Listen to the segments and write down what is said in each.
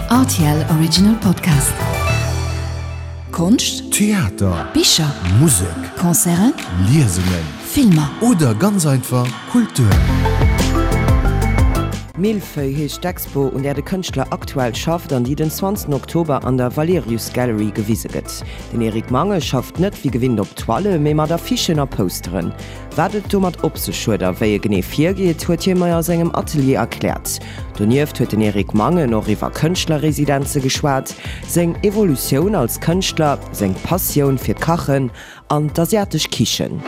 Rtl Original Podcast. Konscht, Theater, Bicher, Musek, Concerten, Liesungen Filmer. oder ganz einfach Kultur. Millefeuille heescht d'Expo, un där de Kënschtler aktuell schafft an déi den 20 Oktober an der Valerius Gallery gewise gëtt. Den Eric Mange schafft net wéi gewinnt op Toile, mee mat Affichen a Posteren. Wat et domat op sech huet a wéi e genee virgeet, huet hie mer a sengem Atelier erkläert. Donieft huet den Eric Mangen och iwwer Kënschtlerresidenze geschwat, seng Evolutioun als Kënschtler, seng Passioun fir d'Kachen an d'asiatesch Kichen.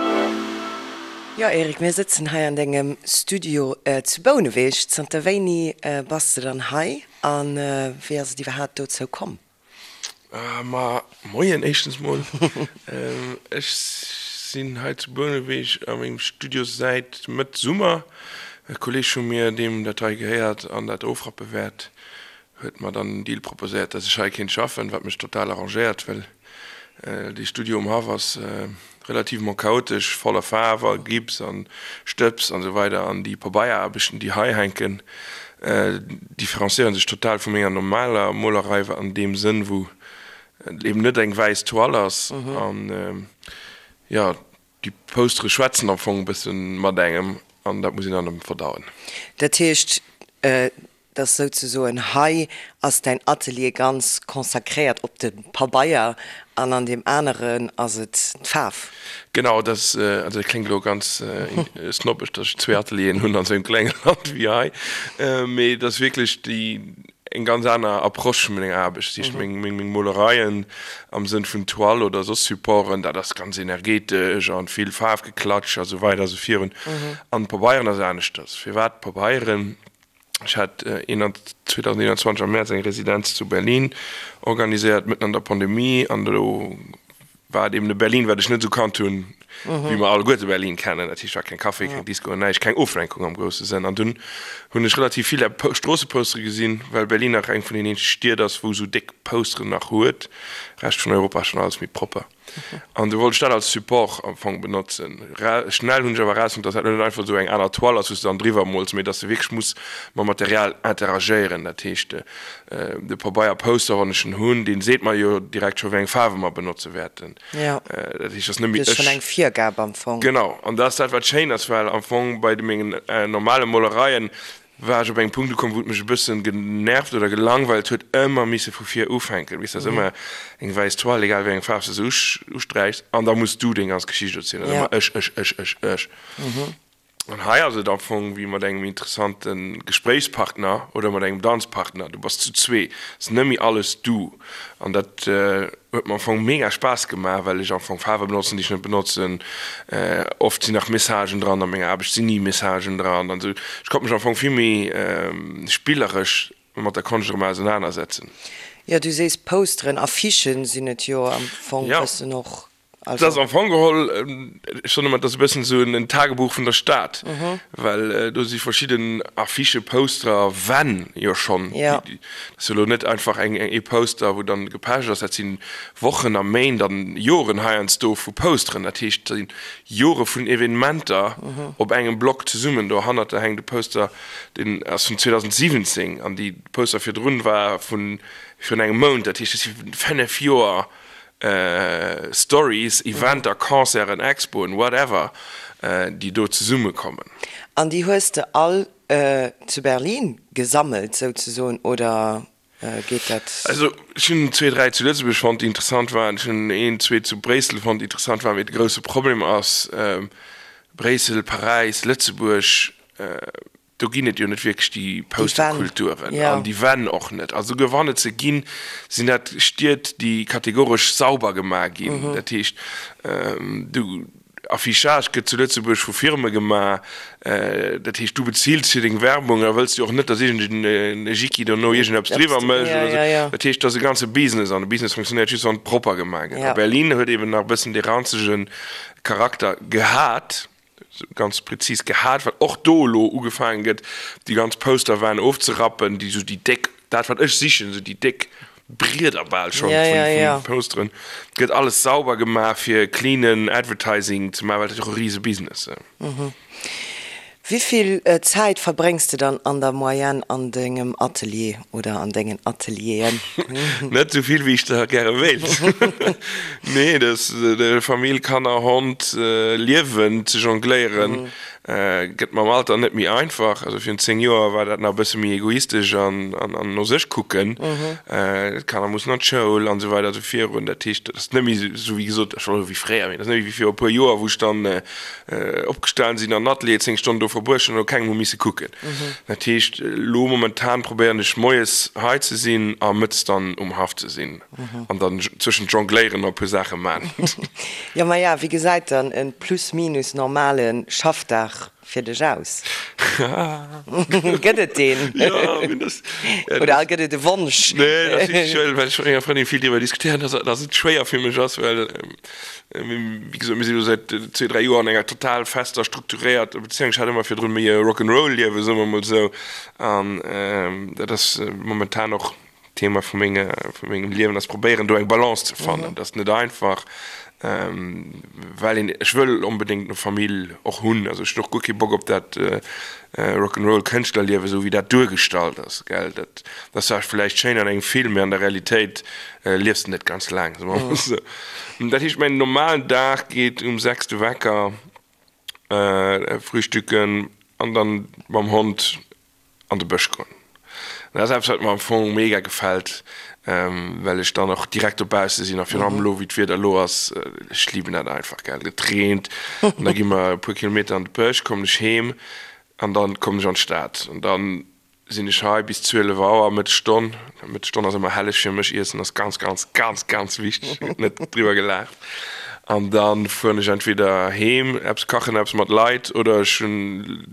Jo Eric, mir sëtzen hei an dengem Studio zu Bouneweg. Zanter wéini bass de dann hei a wéi ass et iwwerhaapt dozou komm? Ma moien éischtens mol. Ech sinn hei zu Bouneweg a mengem Studio säit Mëtt Summer. E Kolleeg vu mir, deem dat hei gehéiert an dat ofrappe wäert, huet mer dann den Deal proposéiert, dass ech hei kéint schaffen, wat mech total arrangéiert, well dee Studio um Haff ass relativement chaotesch, voller Faarf a Gips an Stëbs an esou weider an déi Pabeieraarbechten déi hei hänken différenciéieren sech total vu menger normaler Molerei an deem Sënn wou et eben net eng wäiss Toile ass an jo déi Postere schwätzen am Fong e bëssen mat engem an dat muss een dann verdauen. Dat heescht Dass souzesoen hei ass däin Atelier ganz consacréiert op de Pabeier an an deem aneren ass et d'Faarf. Genau, dat ass, also dat kléngt elo ganz snobbesch, dass ech zwee Atelieren hunn an esou engem klenge Land wéi hei, mee et ass wierklech déi eng ganz aner Approche vun menger Aarbecht. Dat heescht, meng meng Molereien am Sënn vun Toile oder soss Supporten, dat ass ganz energetesch an vill Faarfgeklatsch a sou weider a sou virun. An d'Pabeieren ass aneschters. Firwat Pabeieren? Ech hat 2021 am Mäerz eng Residenz zu Berlin organiséiert, mëtten an der Pandemie. An do war et eben e Berlin, wat ech net esou kannt hunn, wéi mer alleguerte Berlin kennen. Dat heescht, war keng Café, keng Disco, näischt, keng Oflenkung am grousse Sënn. An dunn hunn ech relativ vill Stroossepostere gesinn, well Berlin nach eng vun den eenzege Stied ass, wou esou déck Posteren nach huet. Rescht vun Europa ass schonn alles méi propper. An du wollt ech dat als Support am Fong benotzen. Schnell hunn ech awer erausfonnt, dass dat net einfach esou eng aner Toile ass, wou s de dann driwwer mols, mee dass de wierklech muss mam Material interagéieren. Dat heescht, de Pabeier-Poster, wann ech en hunn, dee seet mer jo direkt scho wéi eng Faarwe mer benotze wäerten. Dat heescht, dass net méi ech. Schonn eng Virgab am Fong. Genau. An dat ass dat, wat schéin ass, well am Fong bei de mengen normale Molereien war ech op engem Punkt ukomm, wou et mech e bëssen genervt oder gelangweilt huet, ëmmer misse vu vir ufänken. Weess, dat ass ëmmer eng wäiss Toile, egal wéi eng Faarf s de se usträichs, an da muss du deng ganz Geschicht erzielen. Dat ass ëmmer ech, ech, ech, ech, ech. An hei ass et am Fong wéi mat engem interessante Gespréichspartner oder mat engem Danzpartner, du bass zu zwee, et ass net méi alles du. An dat huet mer am Fong mega Spaass gemaach, well ech am Fong Faarwe benotzen, déi ech net benotzen. Oft sinn nach Messagen dran, a menger Aarbecht sinn ni Messagen dran an esou. Ech konnt mech am Fong vill méi spilleresch mat der Konscht erëm ausenanersetzen. Jo, du sees Posteren, Affichen sinn et jo am Fong bëssen och. Et ass am Fong geholl, ech soen ëmmer, et ass e bëssen esou en Tagebuch vun der Stad, well do si verschidden Affichen, Posterer, Wänn jo schonn. Dat ass jo elo net einfach eng ee Poster, wou dann gepecht ass, dat si Wochen a Méint an Joren heiansdo vu Posteren. Dat heescht, dat si Jore vun Evenementer op engem Block zesummen. Dohannert da hänkt e Poster, deen ass vun 2017 an déi Poster virdrun war vu virun engem Mount. Dat heescht, dat si 5 Joer Stories, Eventer, Concerten, Expoen, whatever, déi do zesummekommen. An déi hues de all zu Berlin gesammelt souzesoen, oder geet dat? Also ech hunn zwee, dräi zu Lëtzebuerg fonnt, déi interessant waren. Ech hunn een, zwee zu Bréissel fonnt, déi interessant waren. Mee de grousse Problem ass, Bréissel, Paräis, Lëtzebuerg, Do ginn et jo net wierklech déi Posterkulturen an déi Wänn och net. A souguer wann et se ginn, sinn dat Stied, déi kategoresch sauber gemaach ginn. Dat heescht, du, Affichage gëtt zu Lëtzebuerg vu Firme gemaach. Dat heescht, du bezills fir deng Werbung a wëlls jo och net, datt iergend e Jicki dono iergendeppes driwwer mécht oder esou. Dat heescht, et ass e ganze Business an e Business funktionéiert just, wann et propper gemaach gëtt. A Berlin huet eben nach e bëssen dee ranzege Charakter gehat. ganz prezis gehat, well och do elo ugefaange gëtt, déi ganz Posterwänn ofzerappen, déi esou déi déck, dat wat ech sichen, esou déi déck Brieder bal schonn vun Posteren, gëtt alles sauber gemaach fir cleanen Advertising ze maachen, well dat ass jo och e rise Business. Wéi vill Zäit verbréngs de dann an der Moyenne an dengem Atelier oder an dengen Atelieren? Net esou vill wéi ech der gäre wéilt. Nee, dat Famill, Kanner, Hond, Liewen ze jongléieren gëtt mam Alter net méi einfach. Also virun 10 Joer war dat nach e bësse méi egoistesch an no sech kucken. D'Kanner mussen an d'Schoul an esou weider esou virun. Dat heescht, dat ass net méi esou wéi gesot, ech wollt soe wéi fréier, mee dat ass net méi wéi viru e puer Joer, wou ech dann Opgestan sinn an Atelier 10 Stonnen do verbruecht hunn an no kengem hu misse kucken. Dat heescht, elo momentan probéieren ech moies hei ze sinn a mëttes dann um Haff ze sinn an dann zwëschent jongléieren a puer Saache man. Jo, maja, wéi gesäit dann e plus minus normale Schaffdag fir dech aus? Gëtt et deen? Jo, mee das, Oder gëtt et e Wonsch? Nee, dat ass wierklech schwéier, well ech mat menger Frëndin vill driwwer diskutéieren, dass dass et schwéier fir mech ass, well Wéi gesot, mir si lo säit zwee, dräi Joer an enger total fester, strukturéierter Bezéiung. Ech hat ëmmer virdrun méi e Rock'n'Roll-Liewen, soe mer mol esou. An dat ass momentan och Thema vu menge, vu mengem Liewen, ass probéieren, do eng Balance ze fannen. Dat ass net einfach, well een, ech wëll onbedéngt eng Famill och hunn. Also ech hunn och guer kee Bock op dat Rock'n'Roll-Kënschtlerliewen, esou wéi dat duergestallt ass, gell. Dat ass zwar vläicht schéin an engem Film, mee an der Realitéit Liefs de net ganz laang, soe mer mol esou. Dat heescht, mäin normalen Dag geet um 6 de Wecker, frühstücken an dann mam Hond an de Bësch goen. Dat ass eppes, wat mer am Fong mega gefält, well ech dann och direkt dobausse sinn a virun allem elo, wéi d'Wieder elo ass, ech liben dat einfach, gell. Et reent an da gi mer e puer Kilometer an de Bësch, kommen ech heem an dann kommen ech an d'Stad an dann Sinn ech hei bis 12 Auer, Mëttesstonn. Mëttesstonn ass ëmmer helleg fir mech, Iessen ass ganz, ganz, ganz, ganz wichteg, gëtt net driwwer gelaacht. An da fueren ech entweder heem, eppes kachen, eppes mat Leit, oder ech hunn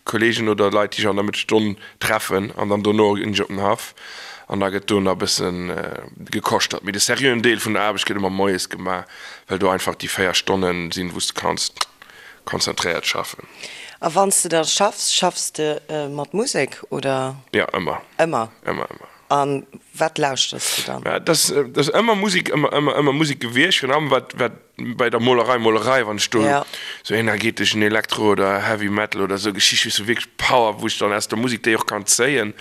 Kolleegen oder Leit, déi ech an der Mëttesstonn treffen an dann dono ginn ech op den Haff an da gëtt do nach e bësse gekoschtert. Mee de seriöen Deel vun der Aarbecht gëtt ëmmer moies gemaach, well do einfach déi 4 Stonne sinn, wou s de kanns konzentréiert schaffen. A wann s de da schaffs, schaffs de mat Musek oder? Jo, ëmmer. Ëmmer? Ëmmer, ëmmer. A wat lauschters de dann? Dat ass, dat ass ëmmer Musek, ëmmer, ëmmer, ëmmer Musek gewiescht. Virun allem wat, wat bei der Molerei, Molerei, wann ech do sou energeteschen Elektro oder Heavy Metal oder sou Geschicht, weess du, wierklech Power, wou ech dann aus der Musek déi och kann zéien.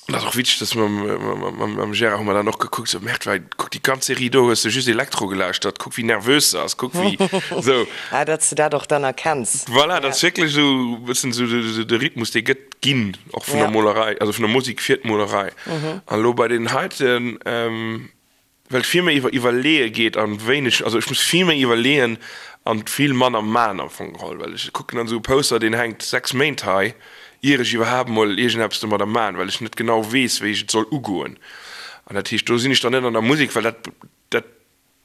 Dat ass och witzeg, dass mam Gérard hu mer dann och gekuckt, sou, Merde, well kuck déi ganz Serie do hues de just Elektro gelauschtert, kuck wéi nervös se ass, kuck wéi sou. Ah, datt s de dat och dann erkenns. Voilà, dat ass wierklech esou e bëssen esou de Rhythmus, dee gëtt ginn, och vun der Molerei, also vun der Musek fir d'Molerei. An elo bei deenen heiten, Well et vill méi iwwer Iwwerleeë geet an wéineg, also ech muss vill méi iwwerleeën an vill manner man am Fong geholl, well ech kucken dann esou e Poster, deen hänkt 6 Méint hei, ier ech iwwerhaapt mol iergendeppes domadder man, well ech net genau weess, wéi ech et soll ugoen. An dat heescht, do sinn ech dann net an der Musek, well dat, dat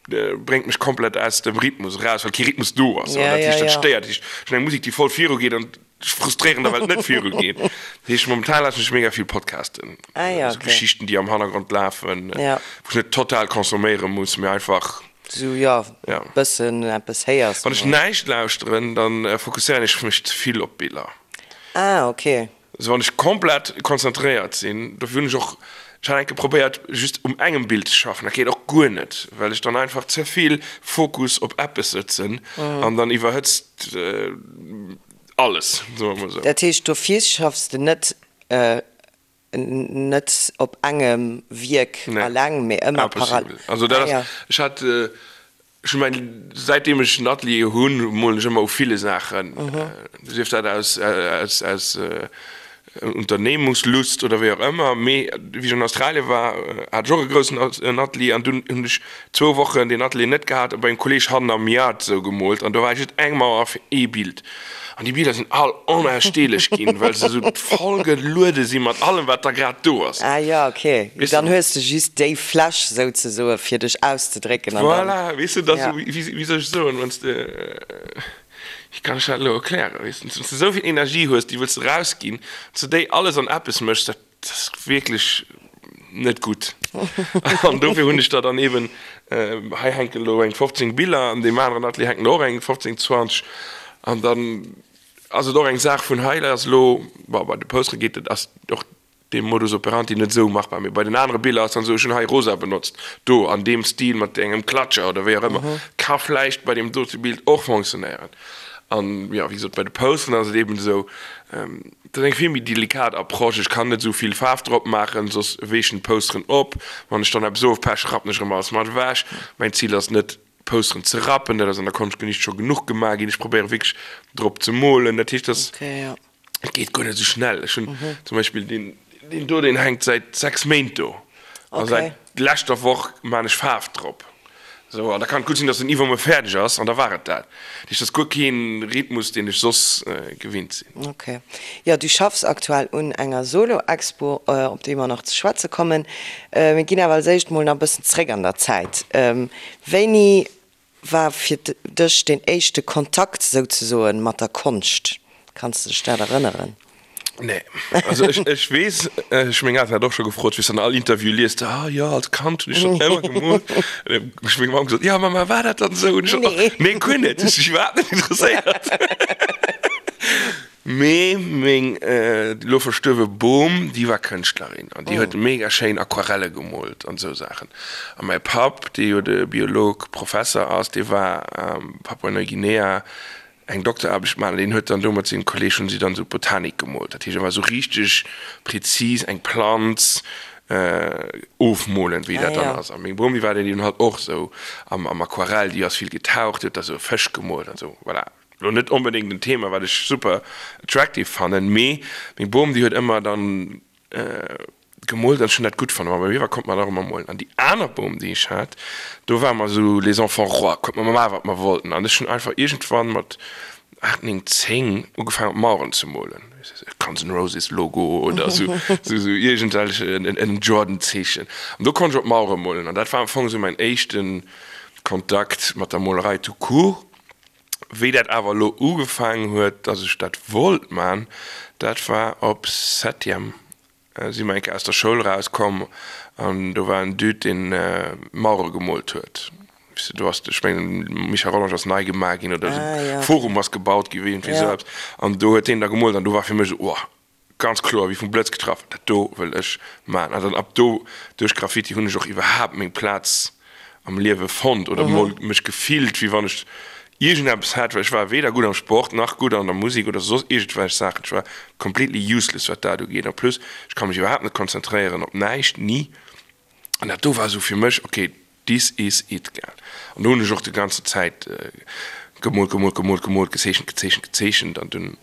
bréngt mech komplett aus dem Rhythmus eraus, well kee Rhythmus do ass. An dat heescht, dat stéiert. Dat heescht, ech hunn eng Musek, déi voll virugeet an ech frustréieren da well et net viru geet. Dat heescht momentan lauschteren ech mega vill Podcasten, Ah ja, esou okay. Geschichten déi am Hannergrond lafen, Ja. wou ech net total consomméiere muss, mee einfach, Sou ja, ja. bëssen eppes héiers. Wann ech näischt lauschteren, dann fokusséieren ech mech ze vill op d'Biller. Ah, okay. Also wann ech komplett konzentréiert sinn, dofir hunn ech och, ech hat eng Kéier probéiert just um engem Bild ze schaffen, dat geet och guer net, well ech dann einfach ze vill Fokus op eppes sëtzen an dann iwwerhëtzt alles, soe mer mol esou. Dat heescht, dofir schaffs de net net op engem Wierk alleng, mee ëmmer parallel? Impossible. Also dat ass, ech hat, ech hu mäin, säitdeem ech en Atelier hunn, molen ech ëmmer u ville Saachen, sief dat aus, aus, aus Unternehmungslust oder wéi och ëmmer. Mee wéi ech an Australien war, hat ech och e groussen Atelier an dunn hunn ech zwou Wochen deen Atelier net gehat a bei engem Kolleeg hannen am Yard esou gemoolt an do war just eng Mauer fir ee Bild. An déi Biller sinn all onaussteelech ginn, well se esou voll geluede si mat allem, wat da grad do ass. Ah jo, ok. Weess de? Dann hues de just déi Fläch souzesoe fir dech auszedrécken an dann. Voilà, weess de, dat ass Ja. esou, wéi, wéi soll ech soen, wann s de, wéi kann ech dat elo erklären, weess de, wann s de esou vill Energie hues, déi wëlls de erausginn, wann s de déi alles an eppes méchs, dat ass wierklech net gutt. An dofir hunn ech der dann eben, hei hänken elo eng 15 Biller, an deem aneren Atelier hänken och eng 15, 20. An dann ass et och eng Saach vun hei ass elo, bon, bei de Postere geet et, ass och dee Modus operandi net esou machbar, mee bei den anere Biller ass dann esou, ech hunn hei rosa benotzt, do an deem Stil mat engem Klatscher oder wéi och ëmmer, ka vläicht bei deem dote Bild och fonctionnéieren. An jo, wéi gesot, bei de Posteren ass et eben esou, dat ass eng vill méi delikat Approche. Ech kann net esou vill Faarf drop maachen, soss weechen d'Posteren op. Wann ech dann eppes ofpeche, rappen ech erëm alles mat ewech. Mäin Zil ass net, Posteren ze rappen, dat ass an der Konschtgeschicht scho genuch gemaach ginn. Ech probéiere wierklech drop ze molen. Dat heescht, dass. Et geet guer net esou schnell. Ech hunn zum Beispill deen, deen do, deen hänkt säit 6 Méint do. A säit leschter Woch maan ech Faarf drop. Esou, an da kann et gutt sinn, dass en iwwermuer fäerdeg ass, an da war et dat. Dat heescht, dat ass guer kee Rhythmus, deen ech soss gewinnt sinn. Ok. Jo, du schaffs aktuell un enger Solo-Expo, op déi mer nach ze schwätze kommen. Mir ginn awer als éischt mol nach e bëssen zréck an der Zäit. Wéini war fir dech deen éischte Kontakt souzesoen mat der Konscht? Kanns de dech dat erënneren? Nee, also ech, ech weess, ech meng Elteren hat och scho gefrot, weess an all Interview liest de, ah jo, als Kand hunn ech schonn ëmmer gemoolt. An dann hu ech meng Mamm gesot, jo Mamma, war dat dann esou? An ech sot, och, nee guer net, hues dech iwwerhaapt net interesséiert. Mee meng elo verstuerwe Bom, déi war Kënschtlerin an déi huet mega schéin Aquarelle gemoolt an esou Saachen. A mäi Papp, dee jo de Biolog, Professer ass, dee war a Papua-Neuguinea eng Dokteraarbecht maachen an deen huet dann do mat sengem Kolleeg hunn si dann esou Botanik gemoolt. Dat heescht, et war esou richteg prezis eng Planz ofmolen, wéi dat dann ass. A meng Bom, déi war dann eben halt och esou am Aquarell, déi ass vill getaucht, déi huet da esou Fësch gemoolt an esou, voilà. Lo net onbedéngt en Thema wat ech super attractive fannen, mee meng Bom déi huet ëmmer dann gemoolt an ech hunn dat gutt fannen. Ma bei mir war konnt mer nach ëmmer molen. An déi aner Bom déi ech hat, do ware mer esou les enfants rois, konnt mer maachen wat mer wollten. An ech hunn einfach iergendwann mat 8, 9, 10 ugefaangen op Maueren ze molen, Guns N' Roses Logo oder esou esou iergendwelch en Jordan Zeechen. An do konnt ech op Mauere molen an dat war am Fong esou mäin éischte Kontakt mat der Molerei tout court. Wéi dat awer elo ugefaangen huet, dass ech dat wollt man, dat war op Septième, si mer eng Kéier aus der Schoul erauskomm an do war en Dude, deen Mauere gemoolt huet. Weess de, do ass, ech mengen, Michel Rollange ass nei gemaach ginn oder de Forum ass gebaut ginn, iergendwéi esou eppes. An do huet deen da gemoolt an do war fir mech esou, Ohh, Ganz kloer, wéi vum Blëtz getraff, dat do wëll ech maachen. An dann ab do, duerch Graffiti, hunn ech och iwwerhaapt meng Plaz am Liewe fonnt oder mol mech gefillt, wéi wann ech iergendeppes hätt, well ech war weder gutt am Sport, nach gutt an der Musek oder soss iergendwelch Saachen. Ech war completely useless, wat dat ugeet. En plus, ech ka mech iwwerhaapt net konzentréieren op näischt, ni. An dat do war esou fir mech, ok, This is it, gell. An do hunn ech och déi ganze Zäit gemoolt, gemoolt, gemoolt, gemoolt, gezeechent, gezeechent, gezeechent an dunn,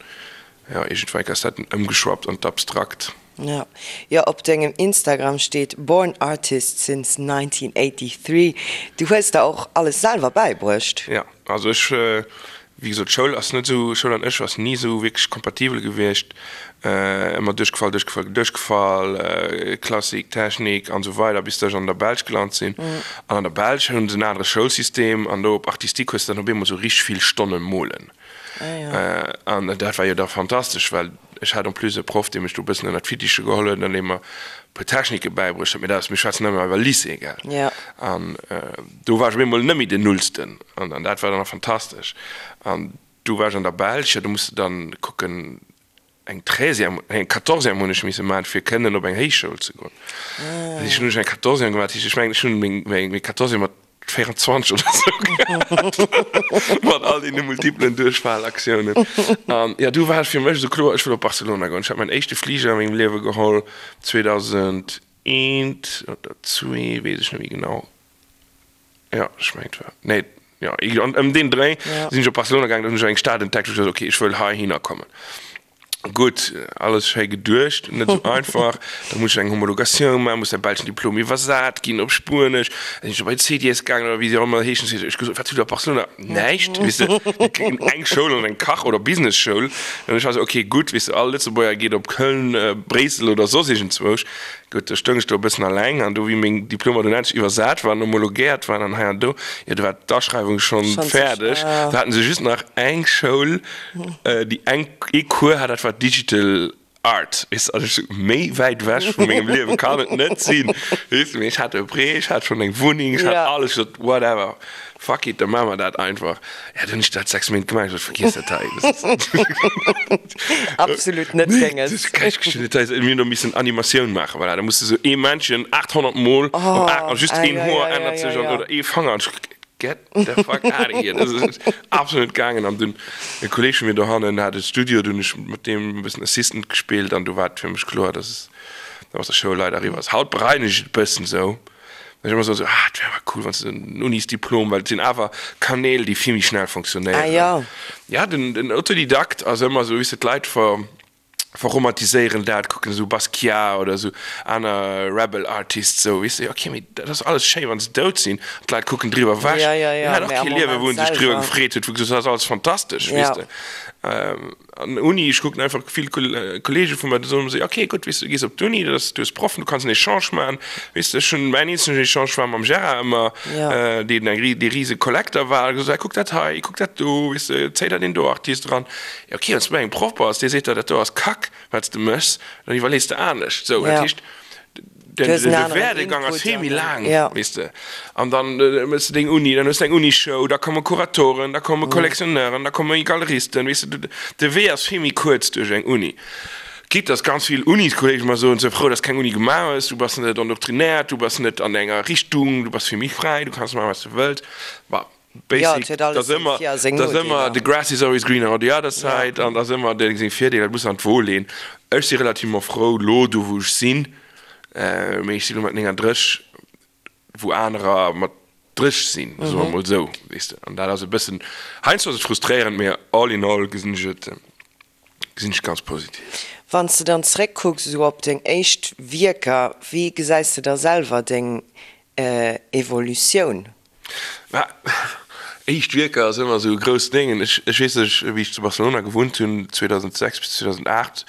jo, iergendwann ass dat dunn ëmgeschwappt an d'Abstrakt. Jo, jo, op dengem Instagram steet Born artist since 1983. Du hues der och alles selwer bäibruecht? Jo, also ech Wéi gesot, Schoul ass net esou, Schoul an ech ass ni esou wierklech kompatibel gewiescht. Ëmmer duerchgefall, duerchgefall, duerchgefall, Klassik, Technik an esou weider, bis ech an der Belsch gelant sinn. An an der Belsch hunn se en anere Schoulsystem an do op Artistique hues de dann op eemol esou richteg vill Stonne molen. An dat war jo da fantastesch, well ech hat en plus e Proff, dee mech do e bëssen ënner d'Fittiche geholl huet an dee mer e puer Technike bäibruecht huet. Mee dat ass, mir schwätzen ëmmer iwwer Lycée, gell? An do war ech op eemol net méi den Nullsten an an dat war dann och fantastesch. An du war ech an der Belsch, jo, do muss de dann kucken, eng Treizième, nee, eng Quatorzième hunn ech misse maachen, fir kënnen op eng Héichschoul ze goen. Dat heescht, hunn ech eng Quatorzième gemaach, dat heescht, ech mengen, ech hunn meng, meng, meng Quatorzième mat 24 oder sou gehat, mat all deene multiplen Duerchfalaktiounen. An jo, du war et fir mech esou kloer, ech wëll op Barcelona goen. Ech hat mäin éischte Fliger a mengem Liewe geholl, 2001 oder zwee, weess ech net méi genau. Jo, ech mengen et war, nee, jo, ëm deen Dréi sinn ech op Barcelona gaangen, da hunn ech eng Stad entdeckt, wou ech gesot hunn, okay, ech wëll heihinner kommen. Gutt, alles schéi geduecht, net esou einfach. Da muss ech eng Homologatioun maachen, muss däi belschen Diplom iwwersat ginn op Spuenesch. Da sinn ech bei d'CDS gaangen oder wéi se och ëmmer heeschen. Ech gesot, wat hutt der op Barcelona? Näischt, weess de, eng Schoul an eng Kach oder Businessschoul. An ech war esou, okay, gutt, weess de, all Lëtzebuerger geet op Köln, Bréissel oder soss iergendzwousch. Gutt, do stoung ech do e bëssen alleng an do, wéi meng Diplomer dunn endlech iwwersat waren, homologéiert waren an hei an do, jo, do war d'Aschreiwung schonn fäerdeg. Do haten se just nach eng Schoul, déi eng, ee Cours hat, dat war Digital Art, weess de. Also ech sou, méi wäit ewech vu mengem Liewe kann et net sinn, weess de. Mee ech hat e Prêt, ech hat schonn eng Wunneng, ech hat alles, ech sot, whatever. Fuck it, da maache mer dat einfach. Ja, dann hunn ech dat 6 Méint gemaach, ech sot, vergiess dat hei. Absolut net denges. Mir hunn do missen Animatioun maachen, voilà, da muss de sou ee Männchen 800 mol op 8 a just een Hoer ännert sech an oder ee Fanger an ech. Get the fuck out of here! Dat ass absolut net gaangen. An dunn, e Kolleeg vu mir dohannen hat e Studio, dunn hunn ech mat deem e bëssen Assistant gespillt an du war et fir mech kloer, dass es da mat der Schoul leider eriwwer ass. Haut bereien ech et e bëssen esou, well ech ëmmer soen, esou, ah, et wär awer cool, wann s de en Unisdiplom, well et sinn awer Kanäl, déi vill méi schnell fonctionnéieren. Ah jo. Ja, den, den Autodidakt ass ëmmer esou, weess de, d'Leit ver. Verromantiséieren dat, kucken esou Basquiat oder esou aner Rebel Artists esou, weess de, ok, mee dat ass alles schéi wann se dout sinn an d'Leit kucken driwwer ewech, Ja, ja, hien ja, hat och mee am kee Liewe Moment wou en sech driwwer selwer. gefreet huet, wou gesot huet, dat ass alles fantastesch, weess Ja. de. An Uni, ech kucken einfach vill Kollege vu mer, déi soen esou, ok, gutt, weess de, du gees op d'Uni, dat ass, du hues Proffen, du kanns en Echange maachen, weess de, ech hunn, mäin eenzegen Echange war mam Gérard ëmmer, Ja. deen eng, dee rise Kollekter war, gesot, hei kuck dat hei, kuck dat do, weess de, zéi der deen do Artist eran. Jo ok, wann s du bei engem Proff bass, dee seet der, dat do ass Kack, wat s de méchs, dann iwwerlees de anescht. Sou, dat heescht, de Werdegang ass vill méi laang, weess de. An dann méchs de deng Uni, dann hues de eng Unishow, da komme Kuratoren, da komme Collectionneuren, da komme Galeristen, weess de. De Wee ass vill méi kuerz duerch eng Uni. Quitte dass ganz vill Uniskolleege mer soen, Sou frou, dass keng Uni gemaach hues, du bass net endoctrinéiert, du bass net an enger Richtung, du bass vill méi fräi, du kanns maachen, wat s de wëlls. Bon. Ja, Basic, et huet alles dass seng ëmmer, Vir a seng dass ëmmer Nodeeler. the grass is always greener on the other Ja. side an dass ëmmer deng seng Virdeeler, dat muss an d'Wo leen. Ech si relativement frou lo do wou ech sinn, mee ech si lo mat 39 wou anerer mat 30 sinn, soe mer mol esou, weess de. An dat ass e bëssen, heiansdo ass et frustréierend, mee all in all gesinn ech et, gesinn ech ganz positiv. Wann s de dann zeréckkucks esou op deng éischt Wierker, wéi gesäis de da selwer deng Evolutioun? Mä éischt Wierker ass ëmmer esou e grousst Déng. Ech, ech weess, ech, wéi ech zu Barcelona gewunnt hunn, 2006 bis 2008,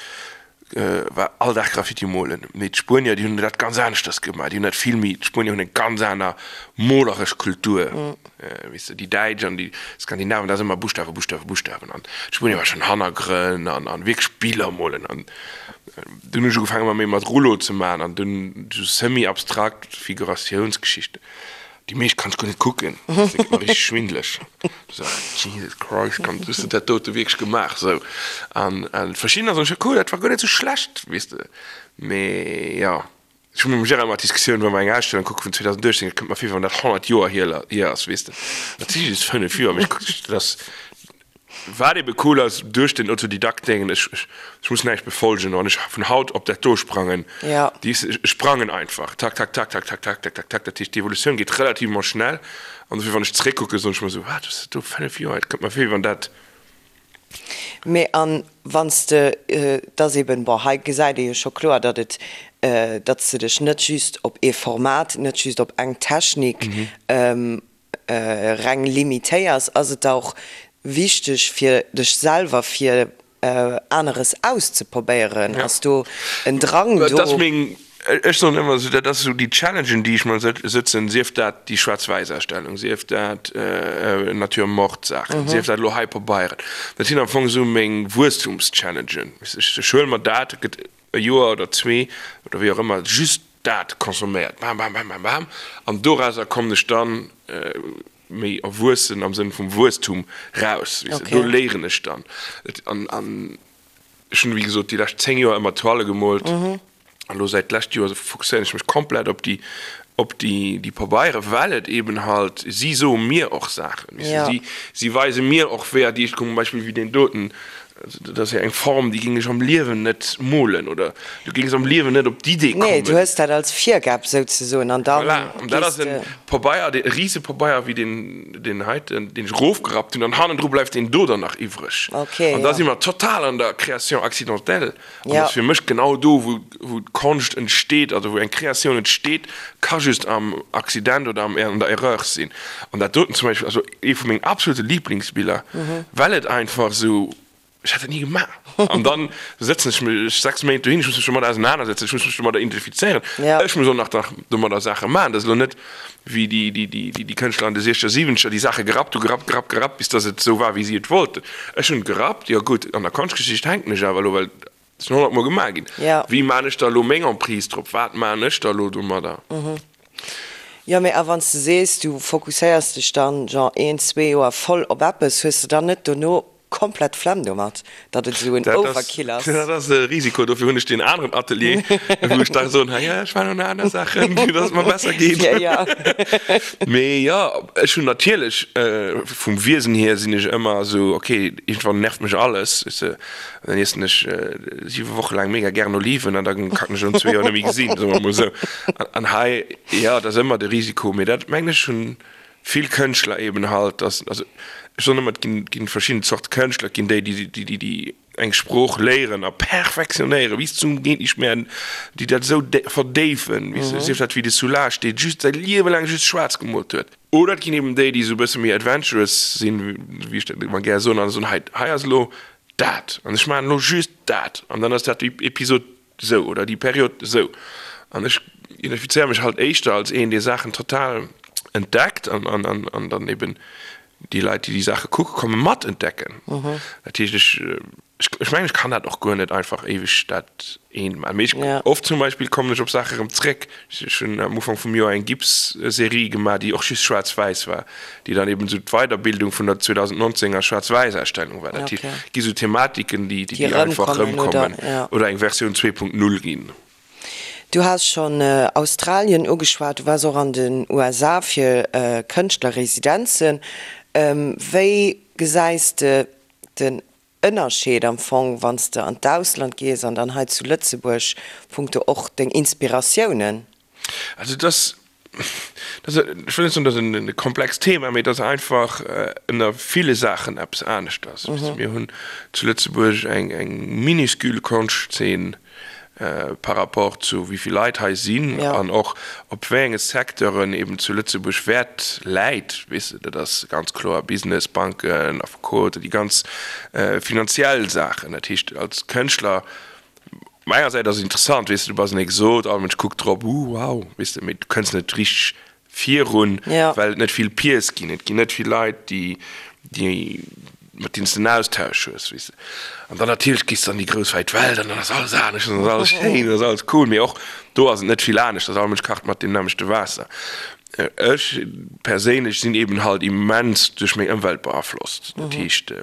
war all Dag Graffiti molen. Mee d'Spuenier, déi hunn dat ganz aneschters gemaach. Déi hunn dat vill méi, d'Spuenier hunn eng ganz aner moleresch Kultur. Weess de, déi Däitsch an déi Skandinaven, dat ass ëmmer Buschtawe, Buschtawe, Buschtawen. An d'Spuenier war schonn Hannergrënn an, an wierklech Biller molen. An dunn hunn ech ugefaangen, ëmmer méi mat Rouleau ze maachen an dunn esou semi-abstrakt Figuratiounsgeschichten. Déi meescht kann ech guer net kucken, dat gëtt mer richteg schwindeleg. So, Jesus Christ, kann, hues de dat dote wierklech gemaach? Sou, an verschiddener soen ech, cool, dat war guer net sou schlecht, weess de. Mee jo, ech hu mam Gérard ëmmer d'Diskussioun, wa mer eng Ausstellung kucke vun 2018, et kënnt mer vir, wéi wann dat 100 Joer hier ass, weess de. Dat si just 5 Joer, mee ech kucken, dat ass. Wat ebe cool ass, duerch den Autodidakt-Déngen, ech, ech muss näischt befolgen, wann ech vun haut op dat do sprangen, Ja. déi, ech sprangen einfach, tak, tak, tak, tak, tak, tak, tak, tak, tak, dat heescht, d'Evolutioun geet relativement schnell an dofir, wann ech zeréckkucken, soen ech mer esou, wat, ass dat do, 5 Joer, et kënnt mer vir, wéi wann dat. Mee an wann s de, et ass eben, bon, hei gesäit ee jo scho kloer, datt et, datt s de dech net just op ee Format, net just op eng Technik reng limitéiers, ass et da och wichteg fir dech selwer fir aneres auszeprobéieren? Ass do en Drang do? Dat ass meng, ech soen ëmmer esou, dat ass esou déi Challengen déi ech mer sëtzen, sief dat déi Schwaarz-Wäiss-Ausstellung, sief dat Nature-Morte-Saachen, sief dat elo hei Pabeieren, dat sinn am Fong esou meng Wuesstumschallengen. Ech huele mer dat, et gëtt e Joer oder zwee oder wéi och ëmmer, just dat consomméiert, bam, bam, bam, bam, bam, an dorauser kommen ech dann méi erwuessen am Sënn vum Wuesstum raus, weess de, do léieren ech dann. An, an ech hunn, wéi gesot, déi lescht 10 Joer ëmmer Toile gemoolt an elo säit d'lescht Joer fokusséieren ech mech komplett op déi, op déi, déi Pabeiere, well et eben halt, si soe mir och Saachen, weess de, si, si weise mir och wéi, déi, zum Beispill wéi deen doten, Dat ass jo eng Form, déi géing ech am Liewen net molen oder du géings am Liewen net op d'Idee kommen. Nee, du hues dat als Virgab souzesoen an dann Voilà, an dat gees ass en de. Pabeier, e Risepabeier wéi deen, deen heiten, deen ech erofgerappt hunn an hannendru bleift deen do dann nach iwwreg. Okay, An da ja. si mer total an der Création accidentelle. An Ja. dat ass fir mech genau do, wou, wou d'Konscht entsteet, also wou eng Kreatioun entsteet, ka just am Accident oder am, an der Erreur sinn. An dat doten zum Beispill ass ee vu mengen absolute Lieblingsbiller, well et einfach esou, ech hätt dat ni gemaach. An dann sëtzen ech mech 6 Méint dohin, ech muss mech domadder ausenanersetzen, ech muss mech domadder identifizéieren, Ja. ech muss och nach domadder Saache maachen. Dat ass elo net wéi déi, déi, déi, déi Kënschtler an de siechzeger, siwenzeger, déi Saache gerappt hu, gerappt, gerappt, gerappt, bis datt et esou war, wéi si et wollten. Ech hunn et gerappt, jo gutt, an der Konschtgeschicht hänken ech awer elo, well et ass schon honnertmol gemaach ginn. Ja. Wéi maan ech da elo meng Emprise drop? Wat maan ech da elo domadder? Jo, mee a wann s de sees, du fokusséiers dech dann, genre een, zwee Joer voll op eppes, hues de dann net dono. komplett d'Flemm domat, datt et esou en Overkill ass? Dat ass e Risiko, dofir hunn ech deen aneren Atelier, wou ech da soen, hei, ech maachen och nach aner Saachen, fir datt et mer besser geet. Mee jo, ech hunn natierlech, vum Wiesen hier sinn ech ëmmer esou, ok, iergendwann nervt mech alles, weess de, dann iessen ech siwe Woche laang mega gären Oliven an da kann ech an zwee Joer net méi gesinn, soe mer emol esou. An hei, jo, dat ass ëmmer de Risiko, mee dat mengen ech hunn vill Kënschtler eben halt, dass, also ech soen ëmmer, et ginn, ginn verschidden Zorte Kënschtler, et ginn déi, déi, déi, déi, déi eng Sprooch léieren a perfektionéieren bis zum geet nicht mehr, déi dat esou verdéifen, weess de, sief dat wéi de Soulages, dee just säi Liewe laang just schwaarz gemoolt huet. Oder et ginn eben déi, déi esou e bësse méi adventurous sinn, wéi ech dat ëmmer gär soen, an soen, hei, hei ass elo dat an ech maachen elo just dat an dann ass dat déi Episod esou oder déi Period esou. An ech identifizéiere mech halt éischter als een, dee Saachen total entdeckt an, an, an, an dann eben déi Leit, déi déi Saache kucke kommen, mat entdecken. Dat heescht, ech, ech mengen, ech kann dat och guer net einfach éiweg dat eent maachen. Mee ech, oft zum Beispill kommen ech op Saache erëm zréck. Ech hunn am Ufank vum Joer eng Gipsserie gemaach, déi och just schwaarz-wäiss war, déi dann eben esou d'Weiderbildung vun der 2019 er Schwaarz-wäiss-Ausstellung war. Dat heescht, et gi sou Thematiken, déi, déi einfach erëmkommen oder eng Versioun 2.0 ginn. Du has schonn Australien ugeschwat, du waars och an den USA fir Kënschtlerresidenzen. Wéi gesäis de den Ënnerscheed am Fong, wann s de an d'Ausland gees an dann hei zu Lëtzebuerg, punkto och deng Inspiratiounen? Also et ass, dat ass, ech wëll net soen, dat ass e komplext Thema, mee et ass einfach ënner ville Saachen eppes aneschters. Mir hunn zu Lëtzebuerg eng minuscule Konschtzeen par rapport zu wéi vill Leit hei sinn an och op wéi enge Secteuren eben zu Lëtzebuerg Wäert läit, weess de, dat ass ganz kloer Business, Banken, Affekoten, déi ganz finanziell Saachen. Dat heescht als Kënschtler, op enger Säit ass et interessant, weess de, du bass en Exot, all Mënsch kuckt drop, uh wow, weess de, mee du kënns net richteg virun, well et net vill Peers ginn. Et ginn net vill Leit, déi, déi, mat deenen s de en Austausch hues, weess de. An dann natierlech gees de an déi grouss wäit Welt an dann ass alles anescht an ass alles schéin an ass alles cool. Mee och do ass et net vill anescht, all Mënsch kacht mat deem nämmlechte Waasser. Ech perséinlech sinn eben halt immens duerch meng Ëmwelt beaflosst. Dat heescht,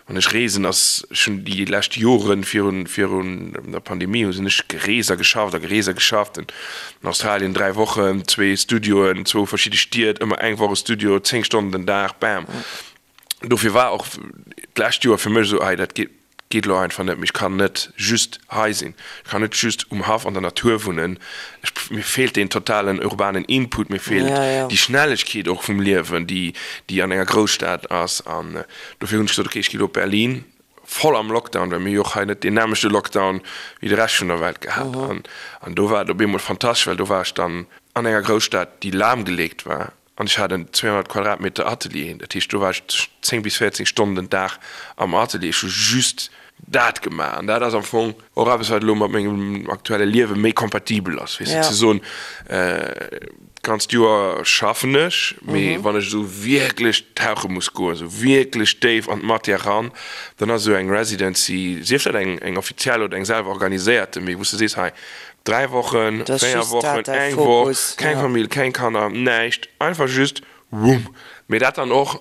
wann ech reesen, ass, ech hunn déi lescht Joren virun, virun der Pandemie hu sinn ech gereest a geschafft a gereest a geschafft. An Australien 3 Wochen, zwee Studioen, zwou verschidde Stied, ëmmer eng Woch e Studio, 10 Stonnen den Dag, bam. Dofir war och d'lescht Joer fir mech esou, hei dat geet geet elo einfach net méi, ech kann net just hei sinn, ech kann net just um Haff an der Natur wunnen, ech mir feelt deen totalen urbanen Input, mir feelt déi Schnellegkeet och vum Liewen, déi déi an enger Grousstad ass. An dofir hunn ech gesot, okay, ech gi elo op Berlin, voll am Lockdown, well mir hu jo och hei net deen nämmlechte Lockdown wéi de Rescht vun der Welt gehat. An do war et op eemol fantastesch, well do war ech dann an enger Grousstad, déi lahmgeleegt war an ech hat en 200 Quadratmeter Atelier. Dat heescht, do war ech 10 bis 14 Stonnen den Dag am Atelier. Ech hu just dat gemaach an dat ass am Fong och eppes, wat elo mat mengem aktuelle Liewe méi kompatibel ass, weess de, ze soen, D'ganzt Joer schaffen ech, mee wann ech esou wierklech tauche muss goen, esou wierklech déif an d'Matière ran, dann ass esou eng Residency, sief dat eng eng offiziell oder eng selwer organiséierte, mee wou s de sees, hei 3 Wochen, 4 Wochen, eng Woch, keng Famill, keng Kanner, näischt, einfach just wumm, mee dat dann och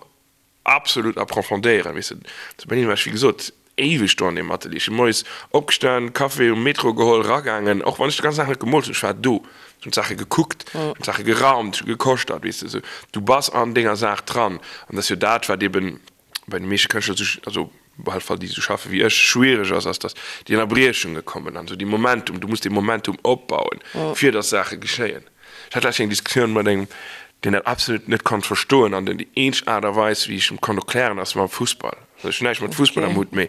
Absolut approfondéieren, weess de. Zu Berlin war ech, wéi gesot, éiweg do an deem Atelier. Ech si moies opgestan, Café um Metro geholl, eragaangen, och wann ech de ganzen Dag net gemoolt hunn, ech war do, ech hunn d'Saache gekuckt, ech hunn d'Saache geraumt, ech hu gekoschtert, weess de, esou. Du bass an denger Saach dran. An dat ass jo dat, wat eben bei de meeschte Kënschtler esou, also op alle Fall déi esou schaffe wéi ech, schwiereg ass, ass, datt déi Ënnerbriechunge kommen an esou déi Momentum, du muss dee Momentum opbauen, fir datt Saache geschéien. Ech hat lech eng Diskussioun mat engem, deen dat absolut net konnt verstoen an den déi eenzeg Aart a Weis, wéi ech em konnt erklären, ass mam Fussball. Also ech hunn näischt mat Fussball am Hutt, mee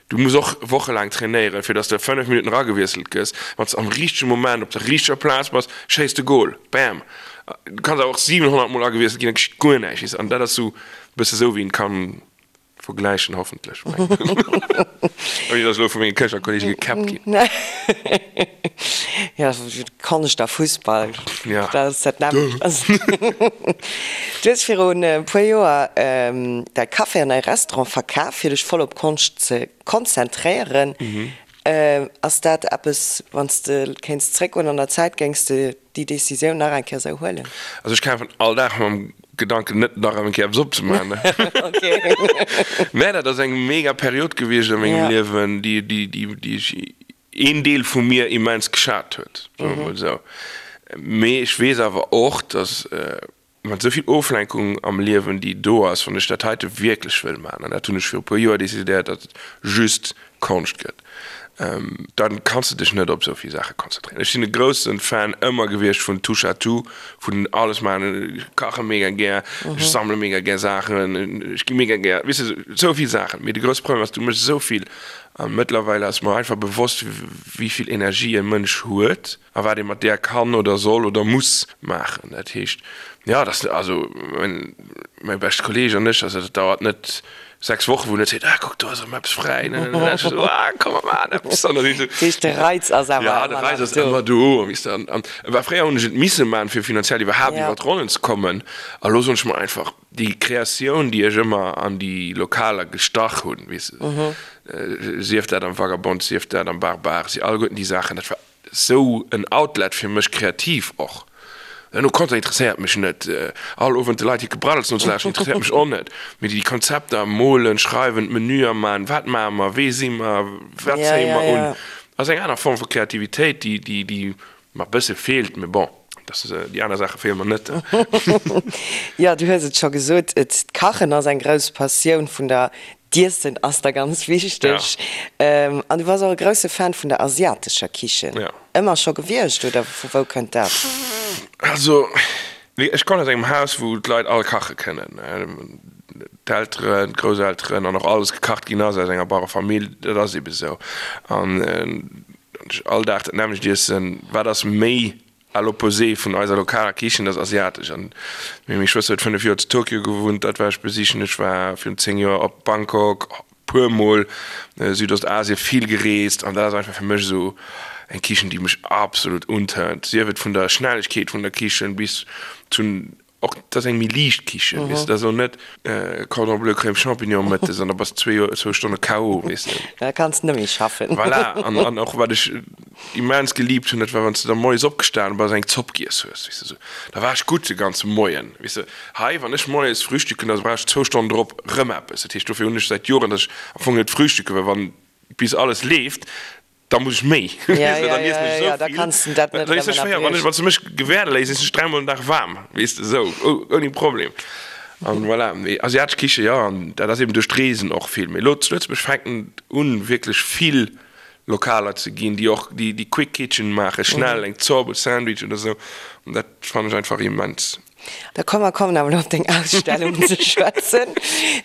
du muss och wochelaang trainéieren, fir datt s de 5 Minutten eragewiesselt gëss. Wann s de am richtege Moment op der richteger Plaz bass, schéiss de Gol. Bam! Du kanns awer och 700 Mol agewiesselt ginn, da geschitt guer näischt, weess de. An dat ass sou e bësse sou, wéi een kann Vergläichen hoffentlech. Ouni dass ech elo vu menge Kënschtlerkollege gekäppt ginn. Jo, Konscht a Fussball, dat ass dat nämmlecht. Du hues virun e puer Joer däi Café an däi Restaurant verkaf, fir dech voll op Konscht ze konzentréieren. Ass dat eppes, wann s de kéints zréckgoen an der Zäit, géings de déi Decisioun nach eng Kéier esou huelen? Also ech kafen all Dag mam. Gedanken net nach eng Kéier eppes opzemaachen. Mä dat ass eng mega Period gewiescht a mengem Liewen, déi, déi, déi, déi ech, een Deel vu mir immens geschat huet, soe mer mol esou. Mee ech weess awer och, datt mat esou vill Oflenkung am Liewen, déi do ass, wann ech dat heite wierklech wëll maachen, an dat hunn ech viru puer Joer decidéiert, datt et just Konscht gëtt, dann kanns de dech net op esou vill Saache konzentréieren. Ech sinn e grousse Fan ëmmer gewiescht vun Touche à tout, vun alles maachen. Ech kache mega gär, ech sammele mega gär Saachen, ech gi mega gär, weess de, esou vill Saachen. Mee de grousse Problem ass, du méchs esou vill a mëttlerweil ass mer einfach bewosst, wéi vill Energie e Mënsch huet. A wat ee mat där kann oder soll oder muss maachen. Dat heescht, jo, dass, also mäi beschte Kolleeg an ech, also dat dauert net 6 Wochen, wou en net seet, ah kuck, do ass erëm eppes fräi, ne, ne, ne. Ech esou, ah komm mer maachen eppes. An da si ech esou. Dat heescht, de Reiz ass awer ëmmer nach do. Ja, de Reiz ass ëmmer do, weess de. An, an war fréier hunn ech et misse maachen, fir finanziell iwwerhaapt iwwer d'Ronnen ze kommen. A lo soen ech mer einfach, déi Kreatioun, déi ech ëmmer an déi Lokaler gestach hunn, weess de, sief dat am Vagabond, sief dat am Barbar, si alleguerten déi Saachen, dat war Sou en Outlet fir mech kreativ och. No Content interesséiert mech net. All Owend de Leit hir Gebraddels nozelauschteren interesséiert mech och net. Mee déi Konzepter, molen, schreiwen, d'Menüer man, wat maache mer, wee si mer, wat zéie mer un, ass eng aner Form vu Kreativitéit, déi, déi, déi mer e bësse feelt. Mee bon, dass déi aner Saache feele mer net. Jo, du hues et scho gesot, d'Kachen ass eng grouss Passioun vun der D'Iessen ass der ganz wichteg. An du bass och e grousse Fan vun der asiatescher Kichen. Ëmmer scho gewiescht oder vu wou kënnt dat? Also ech kommen aus engem Haus, wou d'Leit all kache kënnen. D'Elteren, d'Grousselteren an och alles gekacht ginn ass aus enger Bauerefamill. Dat ass ebe sou. An all Dag dat nämmlecht iessen, wat ass méi À l'opposé vun eiser lokaler Kichen, dat ass asiatesch. An meng Schwëster huet 5 Joer zu Tokio gewunnt, dat war ech besichen. Ech war virun 10 Joer op Bangkok, puer mol Südostasien, vill gereest. An dat ass einfach fir mech esou eng Kichen, déi mech absolut untörnt. Sief et vun der Schnellegkeet vun der Kichen bis zu Och dat ass eng méi liicht Kichen, weess de, dat ass elo net Cordon bleu Crème Champignon mëttes an da bass de zwee Joer, zwou Stonne KO, weess de. Da kanns de net méi schaffen. Voilà, an, an och wat ech immens geliebt hunn, dat war wann s de da moies opgestanen bass an eng Zopp giess hues, weess de, esou, da war ech gutt de ganze Moien, weess de. Hei, wann ech moies frühstücken, da brauch ech zwou Stonnen drop rëm eppes. Dat heescht, dofir hunn ech säit Joren, datt ech am Fong net frühstücke, well wann bis alles leeft, Da muss ech méi. Ja, ja, ja, ja, da kanns de dat net erëm ënnerbriechen. Wann s de mech gewäerde léiss, iessen ech dräimol den Dag waarm, weess de, esou, ouni Problem. An voilà, mee asiatesch Kiche, jo, an dat ass eben duerch d'Reesen och vill. Mee elo zu Lëtzebuerg fänken et un, wierklech vill Lokaler ze ginn, déi och déi Quick Kitchen maachen, schnell eng Zopp, e Sandwich oder esou. An dat fannen ech einfach immens. Da komm mer kommen awer elo op deng Ausstellung ze schwätzen,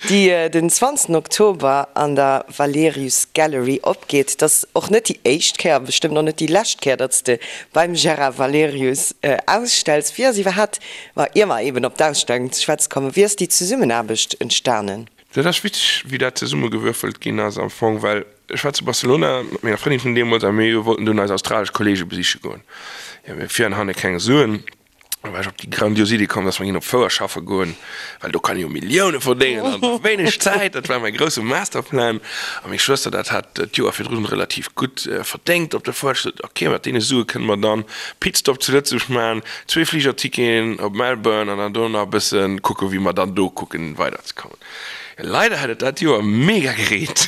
déi den 20 Oktober an der Valerius Gallery opgeet. Et ass och net déi éischt Kéier a bestëmmt och net déi lescht Kéier, datt s de beim Gérard Valerius ausstells. Wéi ass iwwerhaapt, ma ier mer eben op d'Ausstellung ze schwätze kommen, wéi ass déi Zesummenaarbecht entstanen? Dat ass witzeg, wéi dat zesummegewürfelt ginn ass am Fong, well ech war zu Barcelona mat menger Frëndin vun deemools a mir wollten dunn eis australesch Kollege besiche goen. Jo, mir vir an hanne keng Suen. Da war ech op déi grandios Idee komm, dass mer ginn op d'Fouer schaffe goen, well do kann ee jo Millioune verdéngen an wéineg Zäit. Dat war mäi grousse Masterplan. A meng Schwëster, dat hat d'Joer virdrun relativ gutt verdéngt op der Fouer, hat gesot, ok, mat deene Sue kënne mer dann Pitstop zu Lëtzebuerg maachen, zwee Fligerticketen op Melbourne an dann do nach e bësse kucken, wéi mer dann do kucken weiderzekommen. Leider hat et dat Joer mega gereent.